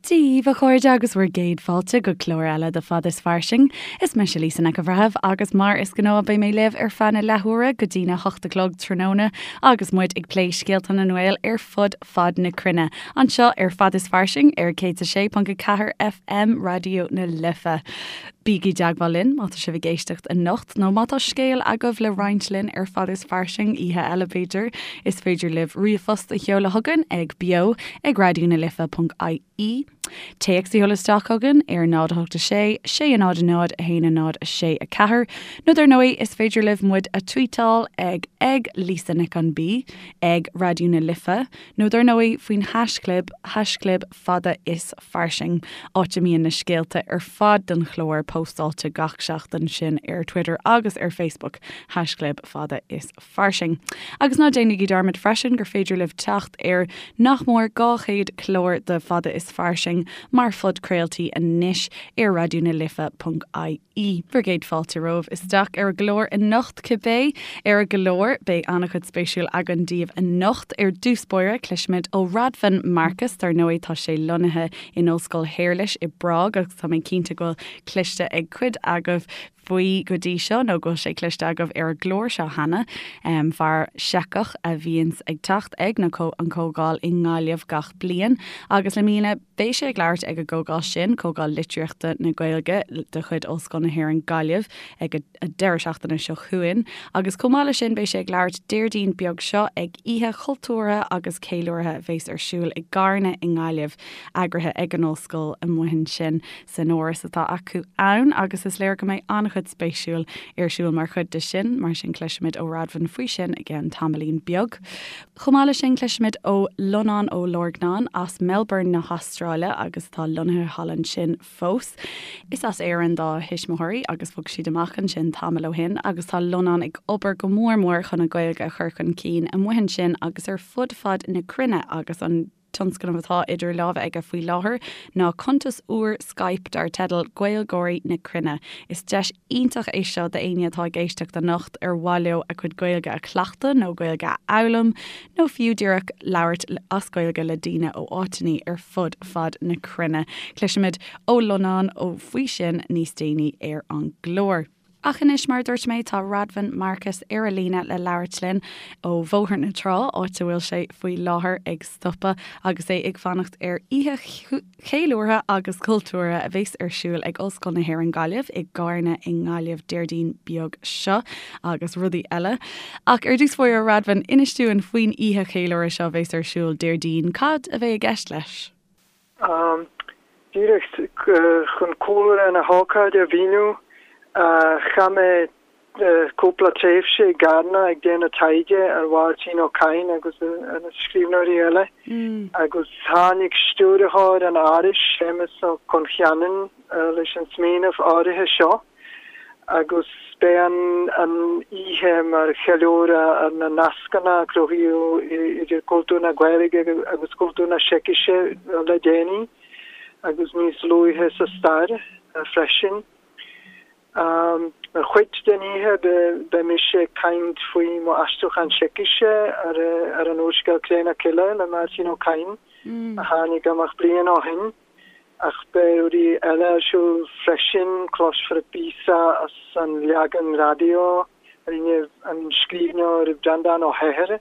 Dia dhaoibh, a chairde, agus bhur gcéad fáilte go clár eile de Fad is Fairsing. Is mise Lisa Nic an Bhreithimh agus mar is gnáth beidh mé libh ar feadh na leathuaire go dtína hocht a chlog tráthnóna agus muid ag plé scéalta na nGael ar fud fad na cruinne, anseo ar Fad is Fairsing ar 106.4 FM Raidió na Life. Bígí i dteagmháil linn má tá sibh ag éisteacht anocht nó má tá scéal agaibh le roinnt linn ar Fad is Fairsing, oíche eile b'fhéidir. Is féidir libh ríomhphost a sheoladh chugainn ag beo ag raidionalife.ie, téacs a sheoladh isteach chugainn ar 0 8 6 6 0 0 1 0 6 4 nó dar ndóigh is féidir libh muid a tweetáil ag ag Lisa Nic an B, ag Raidió na Life nó dar ndóigh faoin haischlib, haischlib fada is fairsing, áit a mbíonn na scéalta ar fad don chlár póstáilte gach seachtain, sin ar Twitter agus ar Facebook, haischlib fada is fairsing. Agus ná déanaigí dearmad freisin gur féidir libh teacht ar nach mór 200 clár de Fada is Fairsing mar phodchraoltaí anois ar raidionalife.ie. Bhur gcéad fáilte romhaibh isteach ar an gclár anocht cibé. Ar an gclár, beidh an-chuid spéisiúil againn daoibh anocht. Ar dtús báire, cloisfimid ó Radvan Markus, dar ndóigh tá sé lonnaithe in Ollscoil Shéarlais i bPrág agus tá mé cinnte go bhfuil cloiste ag cuid agaibh faoi go dtí seo nó go bhfuil sé cloiste agaibh ar an gclár seo cheana. Fear Seiceach a bhíonns ag teacht ag na an Comhdháil i nGaillimh gach bliain agus i mbliana Beidh sé ag labhairt ag an gcomhdháil sin, Comhdháil Litríochta na Gaeilge de chuid Ollscoil na hÉireann Gaillimh, ag an deireadh seachtaine seo chugainn. Agus chomh maith leis sin beidh sé ag labhairt Déardaoin beag seo ag oíche chultúrtha agus ceiliúrtha a bheas ar siúl i gCarna i nGaillimh, eagraithe ag an Ollscoil amuigh ansin san áras atá acu ann. Agus is léir go mbeidh an-chuid spéisiúil ar siúl mar chuid de sin, mar sin cloisfimid ó Radvan faoi sin i gceann tamaillín beag. Chomh maith leis sin, cloisfimid ó Lonán Ó Lorgnáin as Melbourne na hAstráile agus atá lonnaithe thall ansin fós. Is as Éirinn dá thuismitheoirí agus bhog siad amach ansin tamall ó shin agus tá Lonán ag obair go mór mór chun an Ghaeilge a chur chun cinn amuigh ansin agus ar fud fad na cruinne agus an tionscnamh atá idir lámha aige faoi láthair ná cuntas úr Skype dar teideal Gaeilgeoirí na Cruinne. Is deis iontach é seo d'éinne atá ag éisteacht anocht ar mhaith leo a gcuid Gaeilge a chleachtadh nó Gaeilge a fhoghlaim nó fiú díreach labhairt as Gaeilge le daoine ó áiteanna ar fud fad na cruinne. Cloisfimid ó Lonán ó faoi sin níos déanaí ar an gclár. Ach anois, mar a dúirt mé, tá Radvan Markus ar an líne le labhairt linn ó Bhóthar na Trá, áit a bhfuil sé faoi láthair ag stopadh agus é ag fanacht ar oíche cheiliúrtha agus chultúrtha a bheas ar siúl ag Ollscoil na hÉireann Gaillimh i gCarna i nGaillimh Déardaoin beag seo agus rudaí eile. Ach ar dtús báire, Radvan, inis dúinn faoin oíche cheiliúrtha seo a bheas ar siúl Déardaoin. Cad a bheidh i gceist leis? Díreach chun cúlra na hócáide a mhíniú, chaith mé cúpla tréimhse i gCarna ag déanamh taighde ar Mháirtín Ó Cadhain agus ar na scríbhneoirí eile, agus tháinig stiúrthóir an Árais, Séamus Ó Concheanainn, leis an smaoineamh áirithe seo. Agus beidh an oíche mar cheiliúradh ar na nascanna a cruthaíodh idir cultúr na Gaeilge agus cultúr na Seicise le déanaí agus níos luaithe sa stair freisin. Mar chuid den oíche beidh mise ag caint faoi mo aistriúchán Seicise ar an úrscéal Cré na Cille le Máirtín Ó Cadhain a tháinig amach bliain ó shin. Ach beidh rudaí eile ar siúl freisin, cloisfear píosa as an leagan raidió a rinne an scríbhneoir Breandán Ó hEithir,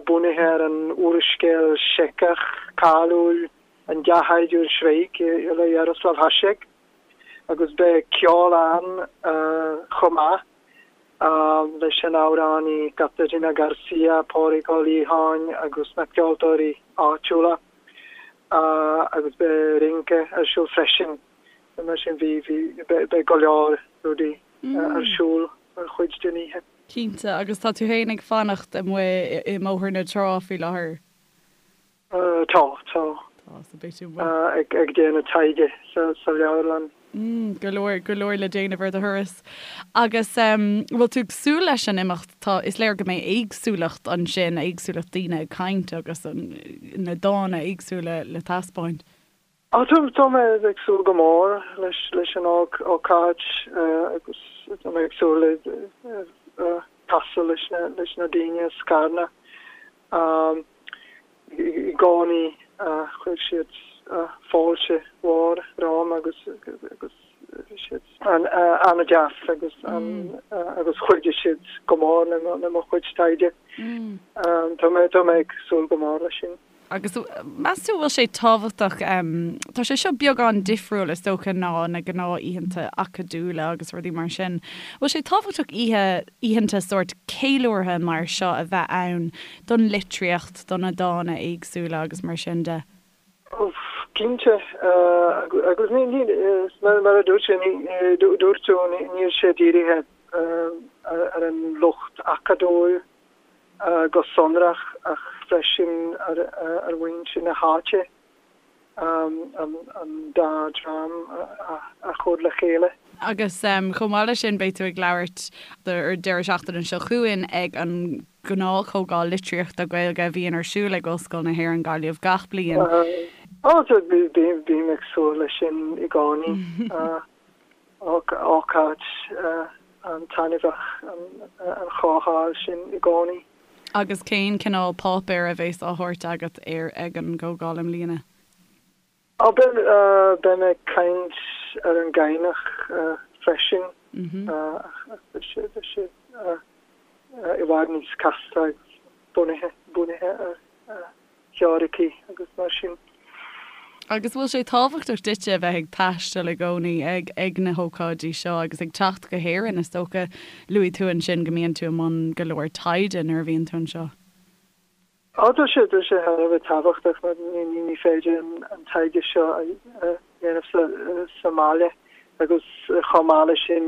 bunaithe ar an úrscéal Seiceach cáiliúil An Dea-Shaighdiúir Schweik le Jaroslav Hašek, agus beidh ceol ann chomh maith leis an amhránaí Kateřina Garcia, Pádraig Ó Liatháin agus na ceoltóirí áitiúla. agus beidh rince ar siúl freisin. Mar sin bhí, bhí, beidh go leor rudaí ar siúl mar chuid den oíche. Cinnte, agus tá tú féin ag fanacht amuigh i mBóthar na Trá faoi láthair? Tá, tá. Tá, so beidh tú amuigh. Ag déanamh taighde sa leabharlann. Mm, go leor, go leor le déanamh ar do thuras. Agus em, bhfuil tú ag súil leis an imeacht? Tá, is léir go mbeidh éagsúlacht ansin, éagsúlacht daoine ag caint agus an, na dána éagsúla le taispeáint. Á, tá, tá mé ag súil go mór leis, leis an ócáid agus tá mé ag súil le casadh leis na, leis na daoine as Carna. I gcónaí chuir siad. fáilte mhór romham agus agus bhí siad an-deas agus agus chuidigh siad go mór le mo chuid taighde. Tá mé tá mé ag súil go mór leis sin. Agus meas tú bhfuil sé tábhachtach, tá sé seo beagán difriúil is dócha ná na gnáth-oícheanta acadúla agus rudaí mar sin, bhfuil sé tábhachtach oíche, oícheanta sórt ceiliúrtha mar seo a bheith ann don litríocht, do na dána éagsúla agus mar sin de? Cinnte, agus ní, ní, mar a dúirt sé, ní, dúirt tú, níl sé dírithe ar an lucht acadúil go sonrach ach freisin ar mhuintir na háite, an dá dream a chur le chéile. Agus chomh maith leis sin beidh tú ag labhairt an deireadh seachtaine seo chugainn ag an ngnáthchomhdháil litríochta Gaeilge a bhíonn ar siúl ag Ollscoil na hÉireann Gaillimh gach bliain. Ó, bím ag súil leis sin i gcónaí. Ócáid an-taitneamhach an chomhdháil sin i gcónaí. Agus cén cineál páipéir a bheas á thabhairt agat ar ag an gcomhdháil i mbliana? Ó, beidh mé ag caint ar an gCadhnach freisin ach beidh sé i bhfad níos casta agus bunaithe bunaithe ar theoiricí agus mar sin. Agus bhfuil sé tábhachtach duitse a bheith ag taisteal i gcónaí ag ag na hócáidí seo agus ag teacht go hÉirinn? Is dócha, luaigh tú ansin go mbíonn tú i mbun go leor taighde nuair a bhíonn tú anseo. Á, tá sé, tá sé thar a bheith tábhachtach mar ní, ní féidir an taighde seo a dhéanamh sa, sa mbaile agus chomh maith leis sin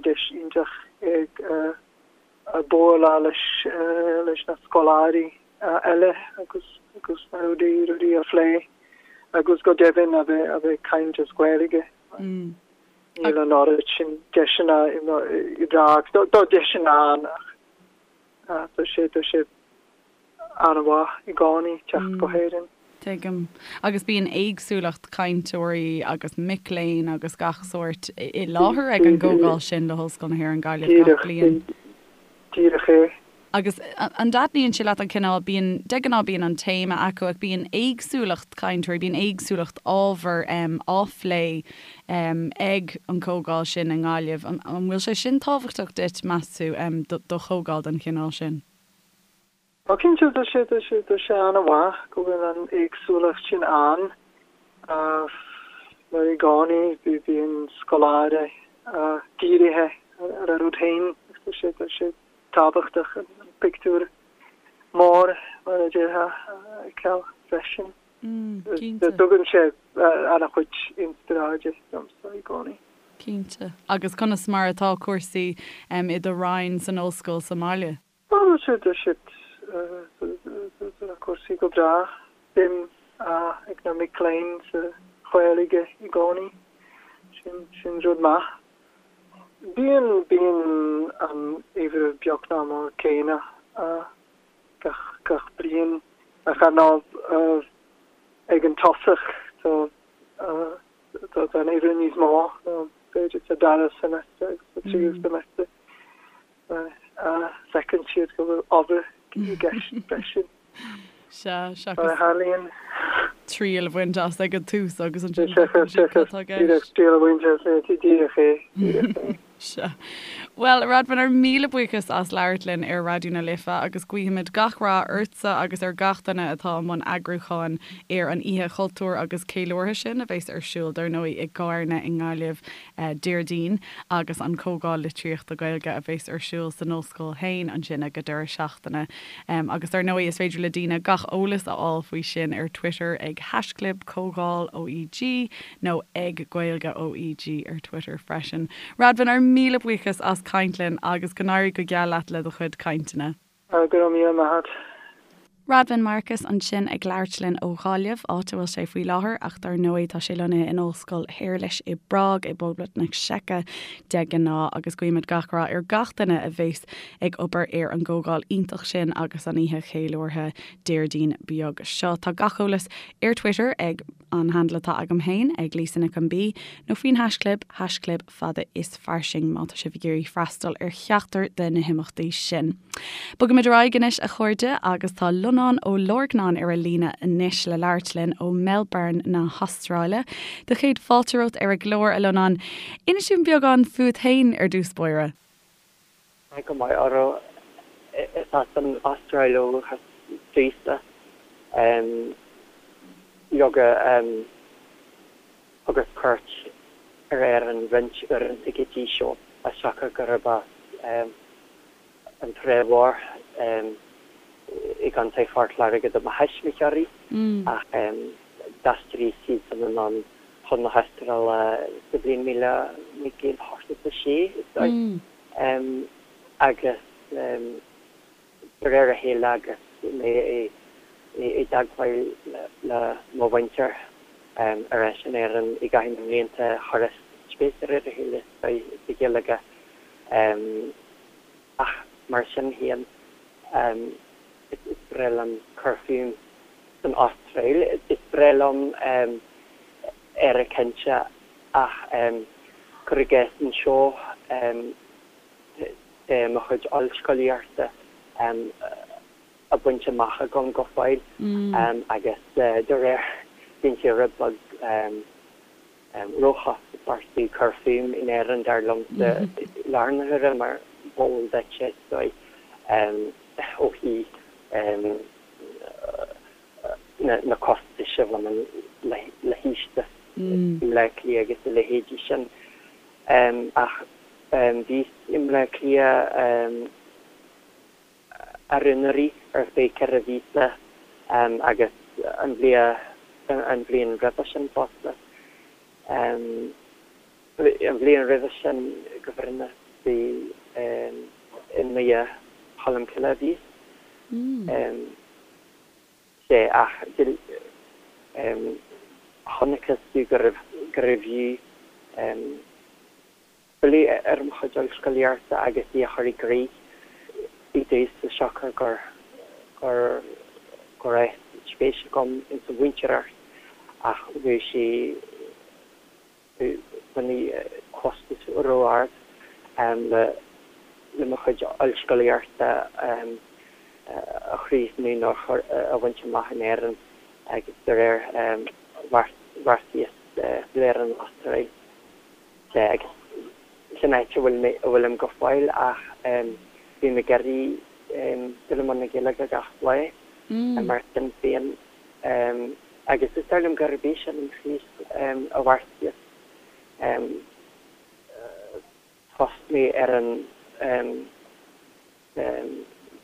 deis iontach ag bualadh leis, leis na scoláirí eile agus, agus na rudaí, rudaí a phlé agus go deimhin a bheith, a bheith ag caint as Gaeilge. Níl an oiread sin deiseanna i, i bPrág. Tá deiseanna ann ach Tá sé, tá sé an-mhaith i gcónaí teacht go hÉirinn. Tuigim. Agus bíonn éagsúlacht cainteoirí agus mic léinn agus gach sórt i láthair ag an gcomhdháil sin le hOllscoil na hÉireann Gaillimh gach bliain. Díreach é. Agus an dtaitníonn sé leat an cineál, bíonn, de ghnáth bíonn an téama acu ach bíonn éagsúlacht cainteoirí, bíonn éagsúlacht ábhar á phlé ag an gcomhdháil sin i nGaillimh. An bhfuil sé sin tábhachtach duit, meas tú, do chomhdháil den chineál sin? Ó cinnte, tá sé, tá sé, tá sé an-mhaith go bhfuil an éagsúlacht sin ann. Mar i gcónaí bíonn scoláire dírithe ar a rud féin agus tá sé, tá sé tábhachtach an pictiúr mór, mar a déarfá, a fheiceáil freisin. Cinnte. Tugann sé an-chuid inspioráide domsa i gcónaí. Cinnte. Agus conas mar atá cúrsaí i do roinn san ollscoil sa mbaile? Tá siad, tá siad, tá na cúrsaí go breá. Suim ag na mic léinn sa Ghaeilge i gcónaí. Sin, sin rud maith. Bíonn, bíonn an uimhir beagnach mar céanna gach, gach bliain. Ach ar ndóigh ag an tosach tá, tá an uimhir níos mó ná b'fhéidir sa dara semester agus sa tríú semester. Feiceann siad go bhfuil obair i gceist freisin. Sea, seachas. Mar a tharlaíonn. Triail a bhaint as ag an tús agus ansin feiceann siad cad atá i gceist. Triail a bhaint as, díreach é, díreach é. Sea. Bhuel, a Radvan, ár míle buíochas as labhairt linn ar Raidió na Life agus guímid gach rath ortsa agus ar gach duine atá i mbun eagrúcháin ar an Oíche Chultúir agus Ceiliúrtha sin a bheas ar siúl, dar ndóigh, i gCarna i nGaillimh Déardaoin agus an Comhdháil Litríochta Gaeilge a bheas ar siúl san Ollscoil féin ansin ag an deireadh seachtaine. Agus dar ndóigh is féidir le daoine gach eolas a fháil faoi sin ar Twitter ag haischlib Comhdháil OEG nó ag Gaeilge OEG ar Twitter freisin. Radvan, ár míle buíochas as caint linn agus go n-éirí go geal leat le do chuid cainteanna. Go raibh míle maith agat. Radvan Markus ansin ag labhairt linn ó Ghaillimh, áit a bhfuil sé faoi láthair, ach dar ndóigh tá sé lonnaithe in Ollscoil Shéarlais i bPrág i bPoblacht na Seice de ghnáth agus guímid gach rath ar gach duine a bheas ag obair ar an gcomhdháil iontach sin agus an oíche cheiliúrtha Déardaoin beag seo. Tá gach eolas ar Twitter ag. an handle atá agam féin ag Lisa Nic an B, nó faoin haischlib, haischlib fada is fairsing má tá sibh ag iarraidh freastal ar cheachtar de na himeachtaí sin. Bogaimid ar aghaidh anois a chairde agus tá Lonán Ó Lorgnáin ar an líne anois le labhairt linn ó Melbourne na hAstráile. Do chéad fáilte romhat ar an gclár, a Lonáin. Inis dúinn beagán fút féin ar dtús báire. Tá go maith oraibh. Is as an Astráil ó dhúchas domhsa. Leoga, thugas cuairt ar Éirinn roinnt uaireanta go dtí seo, as siocair gurb as an Trá Mhór i gContae Phort Láirge do mo thuismitheoirí, ach d'aistrigh siadsan anonn chun na hAstráile sa bhliain 1986, is dóigh. Agus de réir a chéile agus mé i dteagmháil le mo mhuintir ar ais in Éirinn i gcaitheamh na mblianta, chuireas spéis de réir a chéile sa Ghaeilge. Ach mar sin féin, is breá liom cur fúm san Astráil. Is breá liom Éire cinnte ach cuir i gcás anseo tá mo chuid ollscolaíochta á baint amach agam go fóill agus de réir bíonn sé rud beag róchostasach cur fúm in Éirinn dar liomsa i láthair na huaire mar b'eol duit is dóigh ó thaobh na costais a bhaineann le hiostaí i mBleá Cliath agus a leithéidí sin. Ach bhíos i mBleá Cliath aru-anuraidh ar feadh 4 mhíosa agus an bhliain roimhe sin fosta. An bhliain roimhe sin go bhfírinneach bhí i nDoire Cholm Cille a bhíos. Sea, ach chonacthas domh gurbh fhiú filleadh ar mo chuid ollscolaíochta agus í a chur i gcrích i dtús as siocair gur go raibh spéis agam ins an mhúinteoireacht ach bhí sé baineadh costas ró-ard le mo chuid ollscolaíochta a chríochnú nó a bhaint amach in Éirinn agus de réir bheartaíos filleadh ar an Astráil agus sin áit a bhfuil mé a bhfuilim go fóill ach bím ag iarraidh dul i mbun na Gaeilge gach lá mar sin féin. Agus is dóigh liom gurb é sin an chúis a bheartaíos tosnú ar an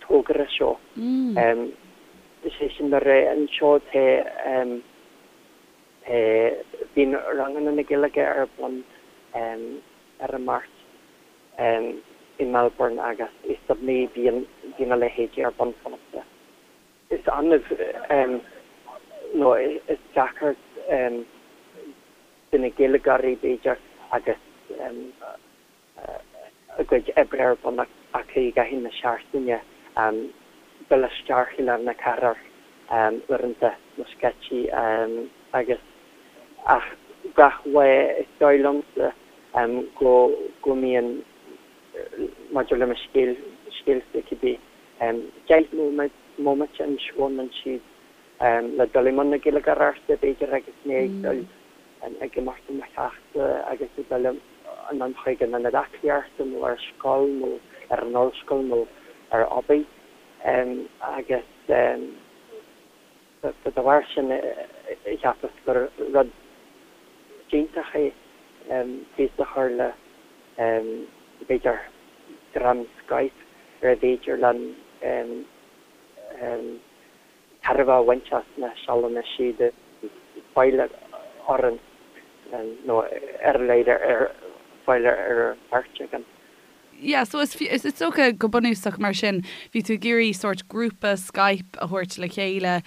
togra seo. Is é sin le rá, anseo tá, bíonn ranganna na Gaeilge ar bun ar an Máirt i Melbourne agus i Sydney bíonn a leithéidí ar bun fosta. Is annamh nó is deacair do na Gaeilgeoirí, b'fhéidir, agus a gcuid oibre ar bun acu i gcaitheamh na seachtaine, dul isteach i lár na cathrach uaireanta nó scaití agus ach gach lá is dóigh liomsa go go mbíonn maidir le mo scéal scéalsa cibé 10 mbomaite anseo nó ansiúd le dul i mbun na Gaeilgeoireachta, b'fhéidir, agus mé ag dul ag imeacht ó mo theachsa agus ag dul anonn chuig an ionad aclaíochta nó ar scoil nó ar an ollscoil nó ar obair. Agus de bharr sin cheapas gur rud iontach é tús a chur le, b'fhéidir, dream Skype ar féidir linn tairbhe a bhaint as na sealanna siúd a fáil orainn nó ar a laghad ar fáil ar an bheirt againn. Yeah, so is is dócha go bunúsach mar sin, bhí tú ag iarraidh sórt grúpa Skype a thabhairt le chéile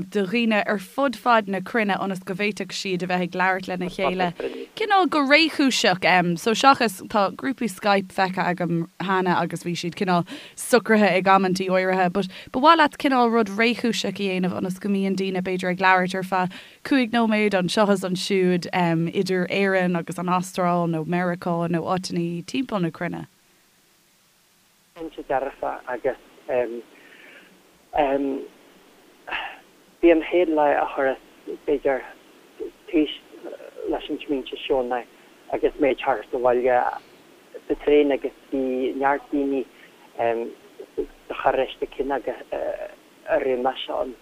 do dhaoine ar fud fad na cruinne ionas go bhféadfadh siad a bheith ag labhairt lena chéile cineál go réchúiseach. So seachas, tá grúpaí Skype feicthe agam cheana agus bhí siad cineál socraithe ag amantaí áirithe, but ba mhaith leat cineál rud réchúiseach a dhéanamh ionas go mbíonn daoine b'fhéidir ag labhairt ar feadh 5 nóiméad anseo is ansiúd idir Éirinn agus an Astráil nó Meiriceá nó áiteanna timpeall na cruinne. Cinnte dearfa agus bhí an chéad lá a chuireas b'fhéidir tús leis an smaointe seo ná agus mé ag teacht abhaile sa traein agus bhí neart daoine sa charráiste céanna a raibh mise ann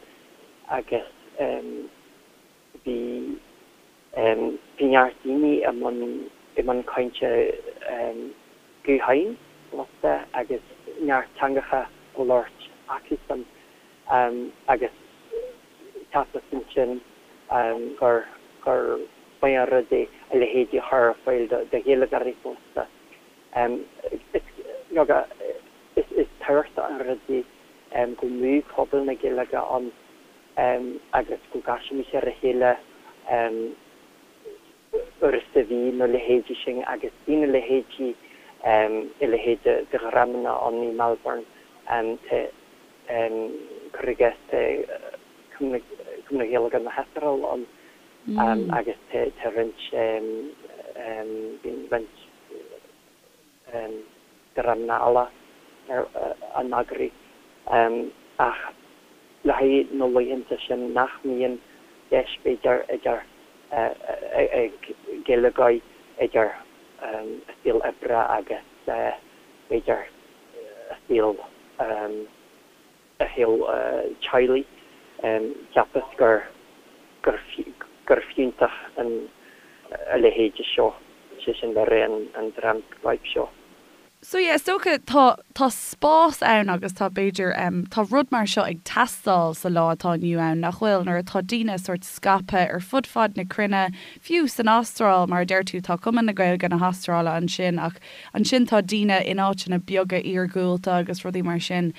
agus bhí bhí neart daoine i mbun i mbun cainte gutháin fosta agus neart teangacha á labhairt acusan agus cheapas ansin gur gur maith an rud é a leithéidí a chur ar fáil do Ghaeilgeoirí fosta. Is leoga is is tábhachtach an rud é go mbeadh pobal na Gaeilge ann agus go gcaisfimis ar a chéile uair sa mhí nó leithéidí sin agus bíonn a leithéidí a leithéid de dhreamanna ann i Melbourne tá cuir i gcás tá Cumann na Gaeilge na hAstráile ann agus tá roinnt bíonn roinnt dreamanna eile á n-eagrú ach le haghaidh na laethanta sin nach mbíonn deis b'fhéidir idir ag Gaeilgeoirí idir a saol oibre agus b'fhéidir a saol a shaol teaghlaigh. Cheapas gur gur fiúntach an a leithéide seo, sé sin le rá an dream Skype seo. So yeah, is dócha tá tá spás ann agus tá b'fhéidir tá rud mar seo ag teastáil sa lá atá inniu ann, nach bhfuil? Nuair atá daoine sórt scaipthe ar fud fad na cruinne, fiú san Astráil, mar a deir tú, tá Cumann na Gaeilge na hAstráile ansin ach Ansin tá daoine in áiteanna beaga iargúlta agus rudaí mar sin.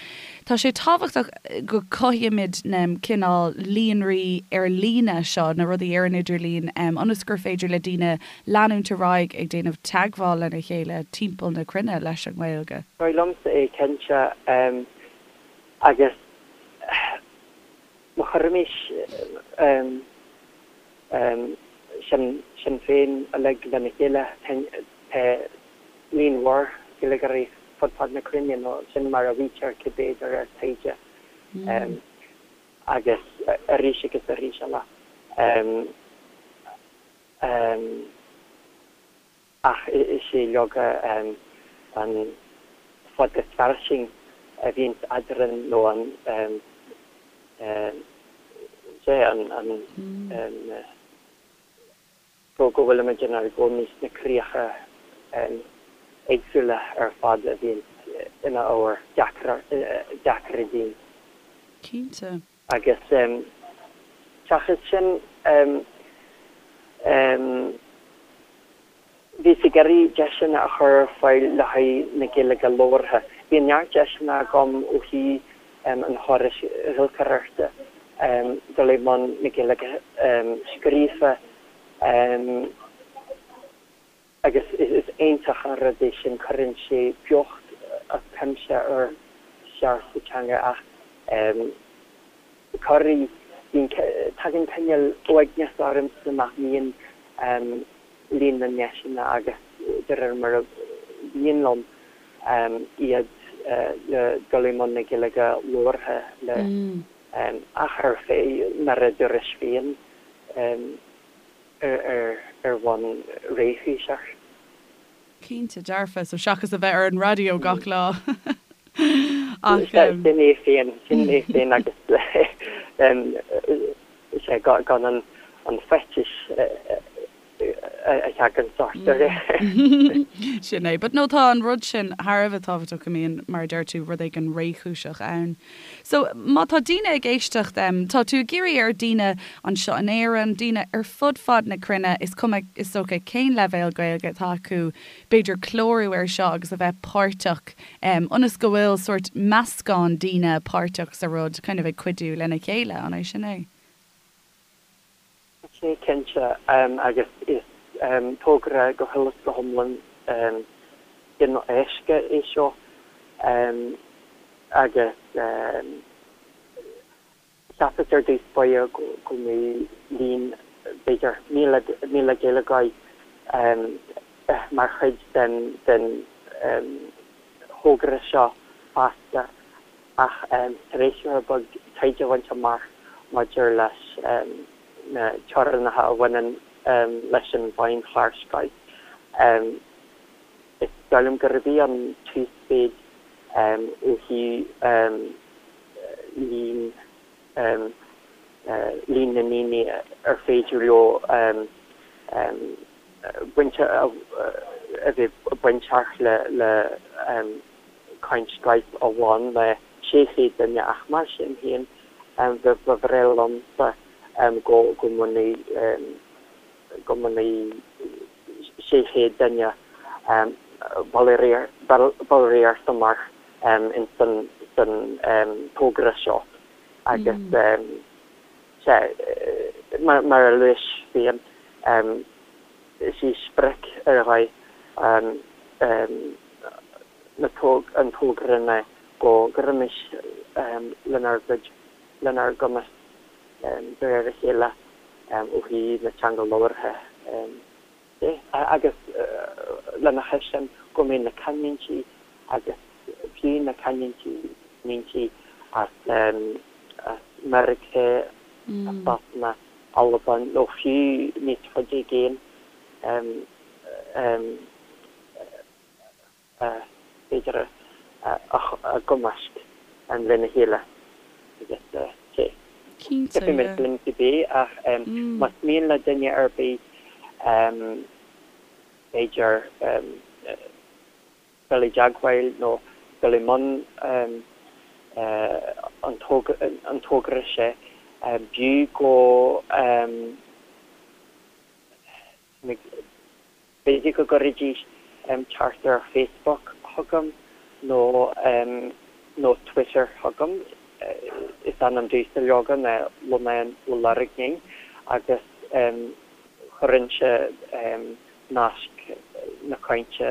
Tá sé tábhachtach go cothaímid na cineál líonraí ar líne seo, na rudaí ar an idirlíon, ionas gur féidir le daoine leanúint ar aghaidh ag déanamh teagmháil lena chéile timpeall na cruinne leis an nGaeilge. Dóigh liomsa é cinnte. Agus má chuirimis sinn féin uilig lena chéile, tá líon mhór Gaeilgeoirí fud fad na cruinne, nó sin mar a mhaítear cibé de réir taighde, agus arís agus arís eile. Ach is é leoga an fad is fairsing a bhíonns eadrainn nó an, sea, an, go bhfuilimid inár gcónaí sna críocha éagsúla ar fad a bhíonns ina ábhar deacra dínn. Cinnte. Agus seachas sin, bhíos ag iarraidh deiseanna a chur ar fáil le haghaidh na Gaeilge labhartha. Bhí neart deiseanna agam ó thaobh an chórais ghiolcaireachta dul i mbun na Gaeilge scríofa. Agus is iontach an rud é sin, cuireann sé beocht as cuimse ar cheart sa teanga ach corruair bíonn, tagann cineál uaigneas ormsa nach mbíonn líon na ndeiseanna agus de réir mar a bhíonn liom iad le dul i mbun na Gaeilge labhartha le ach ar feadh, mar a dúrais féin. ar bhonn réchúiseach. Cinnte, dearfa, so seachas a bheith ar an raidió gach lá. Ach. Sin é féin, sin é féin agus sea, gan an faitíos a. theagann ort de réir. Sin é. But no, tá an rud sin thar a bheith tábhachtach go mbíonn, mar a deir tú, rud éigin réchúiseach ann. So, má tá daoine ag éisteacht, tá tú ag iarraidh ar daoine anseo in Éirinn, daoine ar fud fad na cruinne, is cuma is dócha cén leibhéal Gaeilge atá acu, b'fhéidir clárú air seo agus a bheith páirteach, ionas go bhfuil sórt meascán daoine páirteach sa rud, kind of ag cuidiú lena chéile, an é sin é? Sea, cinnte, agus is togra go huile is go hiomlán cineál éasca é seo agus cheapas ar dtús báire go mbeadh líon, b'fhéidir, 1,000 Gaeilgeoir mar chuid den thogra seo feasta. Ach tar éis rud beag taighde a bhaint amach maidir leis na teorainneacha a bhaineann leis an bhfeidhmchlár Skype, is dóigh liom gurb í an t-uasmhéid ó thaobh líon líon na ndaoine ar féidir leo baint a bheith bainteach le caint Skype amháin le 600 duine ach mar sin féin ba bhreá liomsa go go mbainfeadh go mbainfeadh 600 duine ballraíocht amach ins an san togra seo agus sea mar a luais féin is í sprioc ar dhóigh an an togra ná go gcuirfimis lenár gcuid, lenár gcumas de réir a chéile ó thaobh na teanga labhartha de agus lena chois sin go mbeidh na canúintí agus fiú na canúintí canúintí as Meiriceá, as Sasana, Albain nó fiú níos faide i gcéin b'fhéidir a gcumasc lena chéile agus sea. Cinnte, yeah. Tiocfaidh linn cibé ach más mian le duine ar bith b'fhéidir dul i dteagmháil nó dul i mbun an togra seo, b'fhiú go B'fhéidir go gcuirfidís teacht ar Facebook chugam nó nó Twitter chugam. Is ainm domhsa leoga ná Lonán Ó Lorgnáin agus chuirfinnse nasc na cainte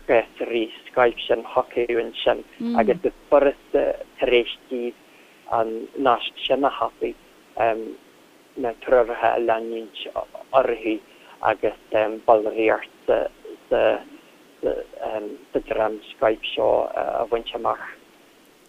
ghléasraí Skype sin chucu ansin agus is furasta tar éis díobh an nasc sin a thapadh na treoracha a leanúint orthu agus ballraíocht sa dream Skype seo a bhaint amach.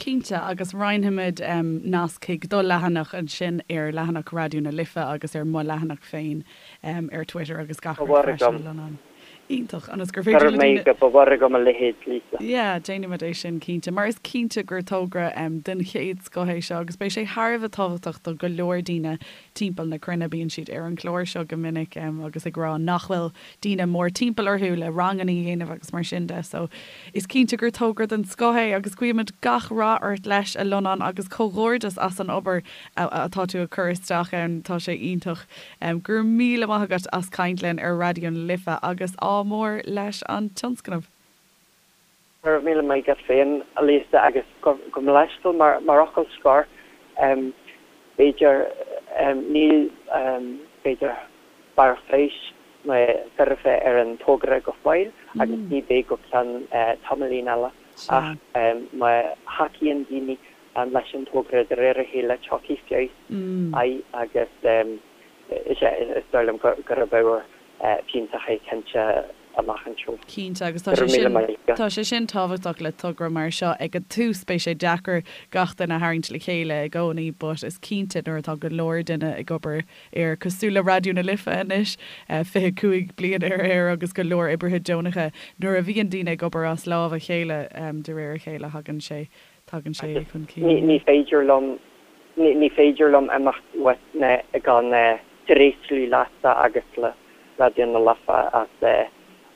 Cinnte, agus roinnfimid nasc chuig do leathanach ansin ar leathanach Raidió na Life agus ar mo leathanach féin ar Twitter agus gach rud freisin, a Lonán. Iontach, ionas gur féidir le daoine. Ba mhór agam a leithéid, Lisa. Yeah, déanfaimid é sin, cinnte, mar is cinnte gur togra den chéad scoth é seo agus beidh sé thar a bheith tábhachtach do go leor daoine timpeall na cruinne. Bíonn siad ar an chlár seo go minic agus ag rá nach bhfuil daoine mór timpeall orthu le ranganna a dhéanamh agus mar sin de. So, is cinnte gur togra den scoth é agus guímid gach rath ort leis, a Lonán, agus comhghairdeas as an obair atá tú ag cur isteach ann. Tá sé iontach. Go raibh míle maith agat as caint linn ar Raidió na Life agus ádh mór leis an tionscnamh. Go raibh míle maith agat féin, a Lisa, agus gabh mo leithscéal mar fhocal scoir, b'fhéidir, níl, b'fhéidir, barr feabhais nó foirfe ar an togra go fóill agus ní bheidh go ceann tamaillín eile ach má thacaíonn daoine leis an togra de réir a chéile tiocfaidh feabhas air agus is ea, is dóigh liom gurb ábhar fiúntach é cinnte amach anseo. Cinnte, agus tá sé sin, tá sé sin tábhachtach le togra mar seo. Ag an tús beidh sé deacair gach duine a tharraingt le chéile i gcónaí but is cinnte nuair atá go leor duine ag obair air, cosúil le Raidió na Life anois, 25 bliain ar aer agus go leor oibrithe deonacha, nuair a bhíonn daoine ag obair as lámh a chéile de réir a chéile thagann sé, tagann sé chun cinn. Ní féidir liom, ní féidir liom imeacht uait gan. Tréaslaím leatsa agus le Raidió na Life as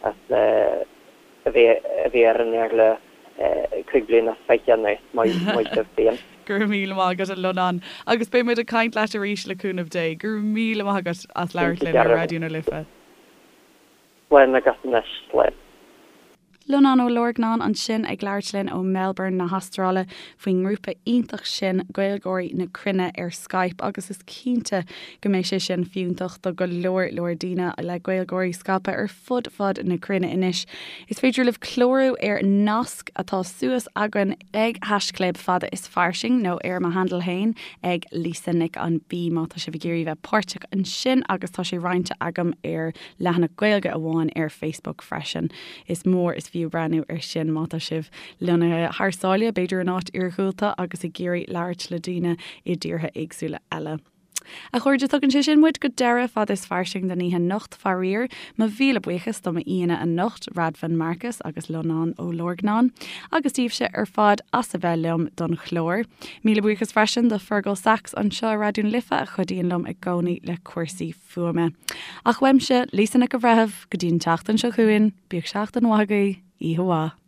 as a bheith a bheith ar an aer le 25 bliana anuas. Maith maith sibh féin. Go raibh míle maith agat a Lonán agus beidh muid ag caint leat arís le cúnamh Dé. Go raibh míle maith agat as labhairt linn ar Raidió na Life. Slán agat anois, slán. Lonán Ó Lorgnáin ansin ag labhairt linn ó Melbourne na hAstráile faoin ngrúpa iontach sin Gaeilgeoirí na Cruinne ar Skype agus is cinnte go mbeidh sé sin fiúntach do go leor leor daoine le Gaeilgeoirí scaipthe ar fud fad na cruinne anois. Is féidir libh clárú ar nasc atá suas againn ag haischlib fada is fairsing nó ar mo handle féin ag Lisa Nic an B má tá sibh ag iarraidh bheith páirteach ansin agus tá sé roinnte agam ar leathanach Gaeilge amháin ar Facebook freisin. Is mór is fiú breathnú ar sin má tá sibh lonnaithe thar sáile, b'fhéidir in áit iarghúlta agus ag iarraidh labhairt le daoine i dtíortha éagsúla eile. A chairde, tugann sé sin muid go deireadh Fada is Fairsing don oíche anocht, faraor. Mo mhíle buíochas do m'aíonna anocht, Radvan Markus agus Lonán Ó Lorgnáin, agus daoibhse ar fad as a bheith liom don chlár. Míle buíochas freisin do Fergal Sachs anseo i Raidió na Life a chuidíonn liom i gcónaí le cúrsaí fuaime. Ach uaimse, Lisa Nic an Bhreithimh, go dtí an tseachtain seo chugainn, bíodh seachtain mhaith agaibh, oíche mhaith.